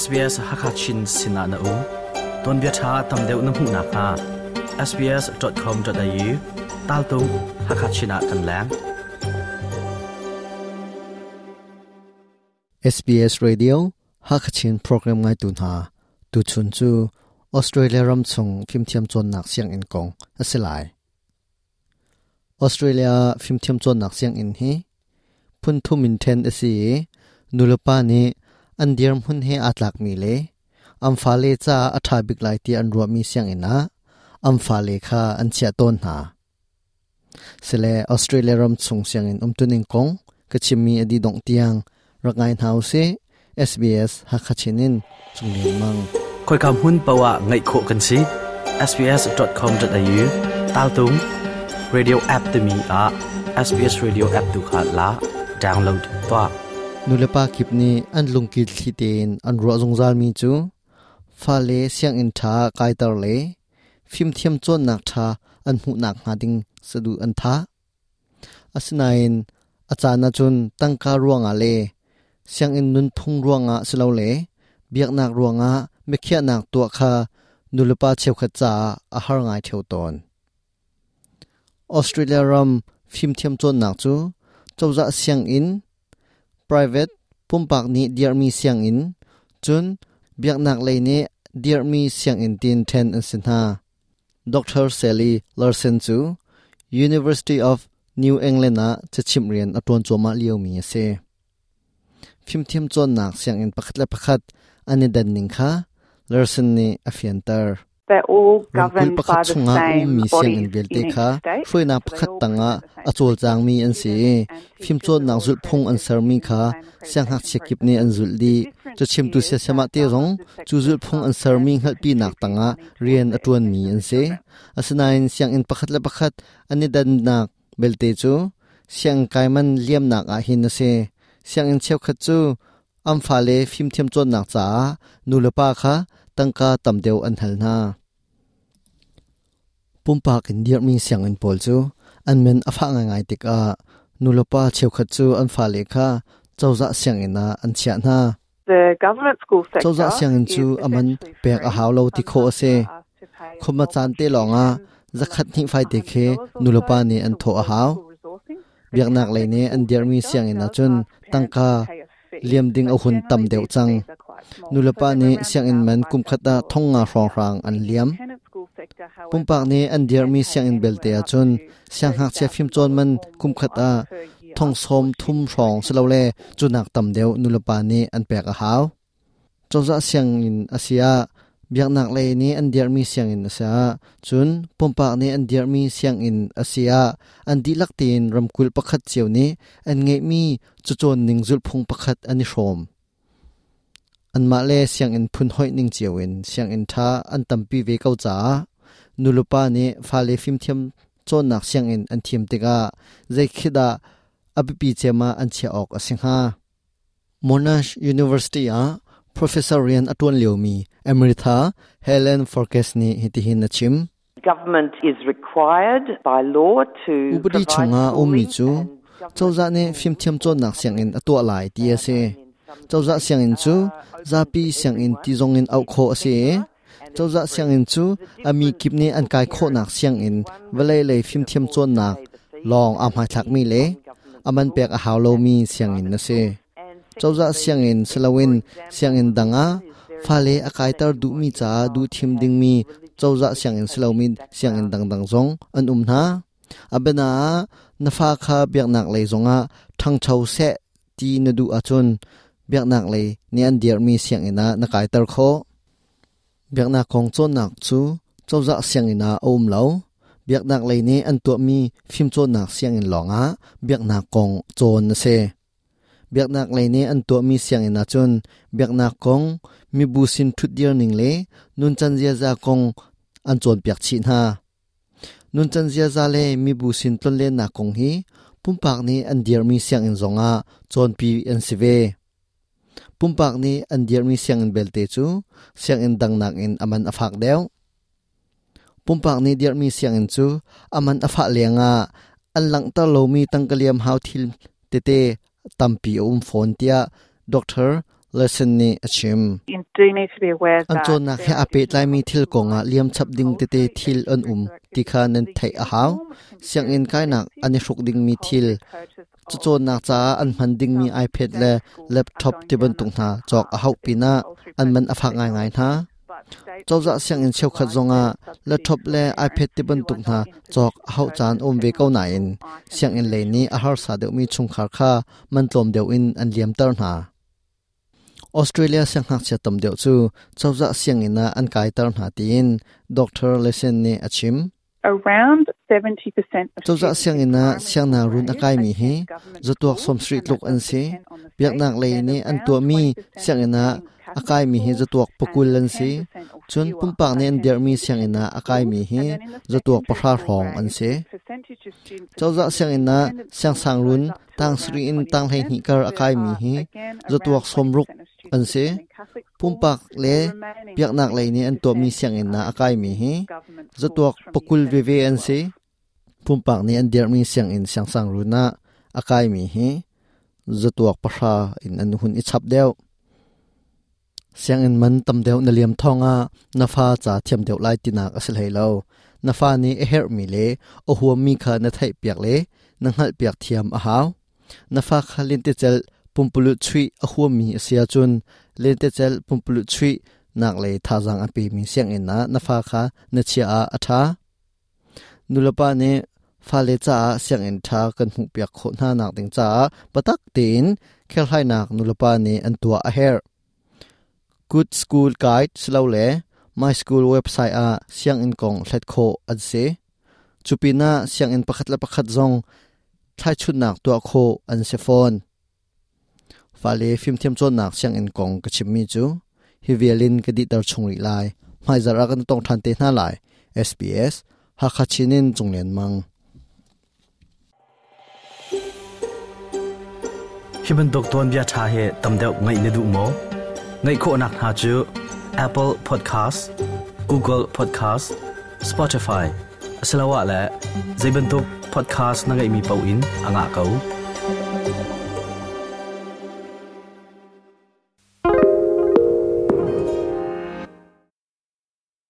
SBS Hakachin sinah na um. Tuanbia ṭha tam deuh na hmuh nakhnga sbs.com.au taltung Hakachin ah kan leng. SBS Radio Hakachin program ngaitu hna tuchun cu Australia ram chung fimthiam cawnnak sianginn kong a si lai. Australia fimthiam cawnnak sianginn hi phun thum in ṭhen a si i nulepa nih an dirhmun he aa tlakmi le an fale caah a ṭha bik lai ti an ruahmi sianginn ah an fale kha an chiah tawn hna. Sile Australia ram chung sianginn umtuning kong ka chimmi a dih dongh tiang rak ngai hna usih. SBS Hakha Chin in Cung Lian Mang. Khoika hmun paoh ah ngaih khawh kan si. sbs.com.au taltung radio app timi ah SBS Radio app tu kha la download tuah. Nulepa kip nih an lungkil thli tein an ruah zungzalmi cu fale sianginn ṭha kaiter le fimthiam cawnnak ṭha an hmuhnak hnga ding saduh an thah. Asinain a caan ahcun tangka ruangah le sianginn nunphung ruangah silole biaknak ruangah biakhiahnak tuah kha nulepa cheukhat caah a har ngai ṭheo tawn. Australia ram fimthiam cawnnak cu cozah sianginn, private pumpak nih dirhmi sianginn, cun biaknak lei nih dirhmi sianginn tiin ṭhen an si hna. Dr. Sally Larson cu University of New England ah cachimh rian a ṭuan cuahmah liomi a si. Fimthiam cawnnak sianginn pakhat le pakhat an i dan ning kha Larson nih a fianter. Ramkulh pakhat chungah a ummi sianginn vialte kha hruainak pakhat tangah a cawlcangmi an si i fimcawnnak zulhphung an sermi kha siangngakchia kip nih an zulh dih. Cachimtu siasem ah te zong cu zulhphung an sermi hngalhpinak tangah rian a ṭuanmi an si. Asinain sianginn pakhat le pakhat an i dannak belte cu sianginn kai man liamnak ah hin a si. Sianginn cheukhat cu an fale fimthiam cawnnak caah nulepa kha tangka tam deuh an hal hna. Pumpak in dirhmi sianginn pawl cu an min a fah ngaingai tikah nulepa cheukhat cu an fale kha cozah sianginn ah an chiah hna. Cozah sianginn cu a man pek a hau lo ti khawh a si. Khuma caan te lawngah zakhat hnih faite khi nulepa nih an thawh a hau. Biaknak lei nih an dirhmi sianginn ahcun tangka liam ding a hun tam deuh cang. Nulepa nih sianginn man kumkhat ah thong nga hrawnghrang an liam. Pumpak nih an dirhmi sianginn belte ahcun siangngakchia fimcawn man kumkhat ah thong sawm thum hrawng silole cunak tam deuh nulepa nih an pek a hau. Cozah sianginn a si ah biaknak lei nih an dirhmi sianginn a si ah cun pumpak nih an dirhmi sianginn a si ah an dihlak tein ramkulh pakhat cio nih an ngeihmi cacawn ning zulhphung pakhat an i hrawm. Anmah le sianginn phun hoih ning cio in sianginn ṭha an tampi ve ko caah nulepa nih fale fimthiam cawnnak sianginn an thim tikah zei khi dah a biapi cem ah an chiah awk a si hnga? Monash University ah professor rian a ṭuan liomi Amrita Helen Forkes nih hitihin a chim. Government is required by law to Upadi chungah ummi cu cozah nih fimthiam cawnnak sianginn a tuah lai ti a si. Cozah sianginn cu zapi sianginn ti zongin auh khawh a si i cozah sianginn cu a mi kip nih an kai khawhnak sianginn vawlei lei fimthiam cawnnak lawng aa hmaithlakmi le a man pek a hau lomi sianginn a si. Cozah sianginn siloin sianginn dang ah fale a kaiter duhmi caah duhthim dingmi cozah sianginn silomi sianginn dangdang zong an um hna. A biana ah na fa kha biaknak lei zongah ṭhangcho seh ti na duh ahcun biaknak lei nih an dirhmi sianginn ah na kaiter khawh. Biaknak kong cawnnak cu cozah sianginn ah a um lo. Biaknak lei nih an tuahmi fimcawnnak sianginn lawngah biaknak kong cawn a si. Biaknak lei nih an tuahmi sianginn ahcun biaknak kong, mibu sin ṭhutdir ning le nuncan ziaza kong an cawnpiak chih hna. Nuncan ziaza le mibu sin tlonlennak kong hi pumpak nih an dirhmi sianginn zongah cawnpi an si ve. Pumpak nih an dirhmi sianginn belte cu sianginn dang nakin a man a fak deuh. Pumpak nih dirhmi sianginn cu a man a fah lengah an langhter lomi tangka liam hau thil tete tampi a um fawn tiah Dr. Lesson nih a chim. An cawnnak he aa pehtlaimi thil kongah liam chap ding tete thil an um ti kha nan theih a hau. Sianginn kainak an i hruk dingmi thil, cacawnnak caah an hman dingmi iPad le laptop tibantuk hna cawk a hauh pinah an man a fak ngaingai hna. Cozah sianginn cheukhat zongah laptop le iPad tibantuk hna cawk a hauh caan um ve ko nain sianginn lei nih a harsa deuhmi chungkhar kha man tlawm deuh in an liamter hna. Australia siangngakchia tam deuh cu cozah sianginn ah an kaiter hna tiin Dr. Lesen nih a chim. Cozah sianginn ah siangnakruun a kaimi hi zatuak 70 tluk an si. Biaknak lei nih an tuahmi sianginn ah a kaimi hi zatuak 20 an si. Cun pumpak nih an dirhmi sianginn ah a kaimi hi zatuak 10 hrawng an si. Cozah sianginn ah siangsangruun tang sarih in tang 12 kar a kaimi hi zatuak 60 an si. Pumpak le biaknak lei nih an tuahmi sianginn ah a kaimi hi zatuak 20 veve an si. Pumpak nih an dirhmi sianginn siangsangruun ah a kaimi hi zatuak 10 in an hun i chap deuh. Sianginn man tam deuh na liam thawngah na fa ca thiam deuh lai tinak a si hlei lo. Na fa nih a herhmi le a huammi kha na theihpiak le na hngalhpiak thiam a hau. Na fa kha lentecelh pumpululh chuih a huammi a si ahcun lentecelh pumpululh chuih nak lei thazaang a pemi sianginn ah na fa kha na chiah ah a ṭha. Nulepa nih fale caah sianginn ṭha kan hmuhpiak khawh hna nak ding caah biatak tein kherhhlainak nulepa nih an tuah a herh. Good School Guide silole My School website ah sianginn kong hlat khawh an si. Cu pinah sianginn pakhat le pakhat zong thlaichunnak tuah khawh an si fawn. Fale fimthiam cawnnak sianginn kong ka chimmi cu hi vial in ka dihter chung rih lai. Hmaizarh ah kan tong ṭhan te hna lai. SBS Hakha Chin in Cung Lian Mang. Hi bantuk tuanbia ṭha hi tam deuh ngaih na duh maw? Ngaih khawhnak hna cu Apple Podcast, Google Podcast, Spotify asiloah le zei bantuk podcast na ngeihmi paoh in a ngah ko.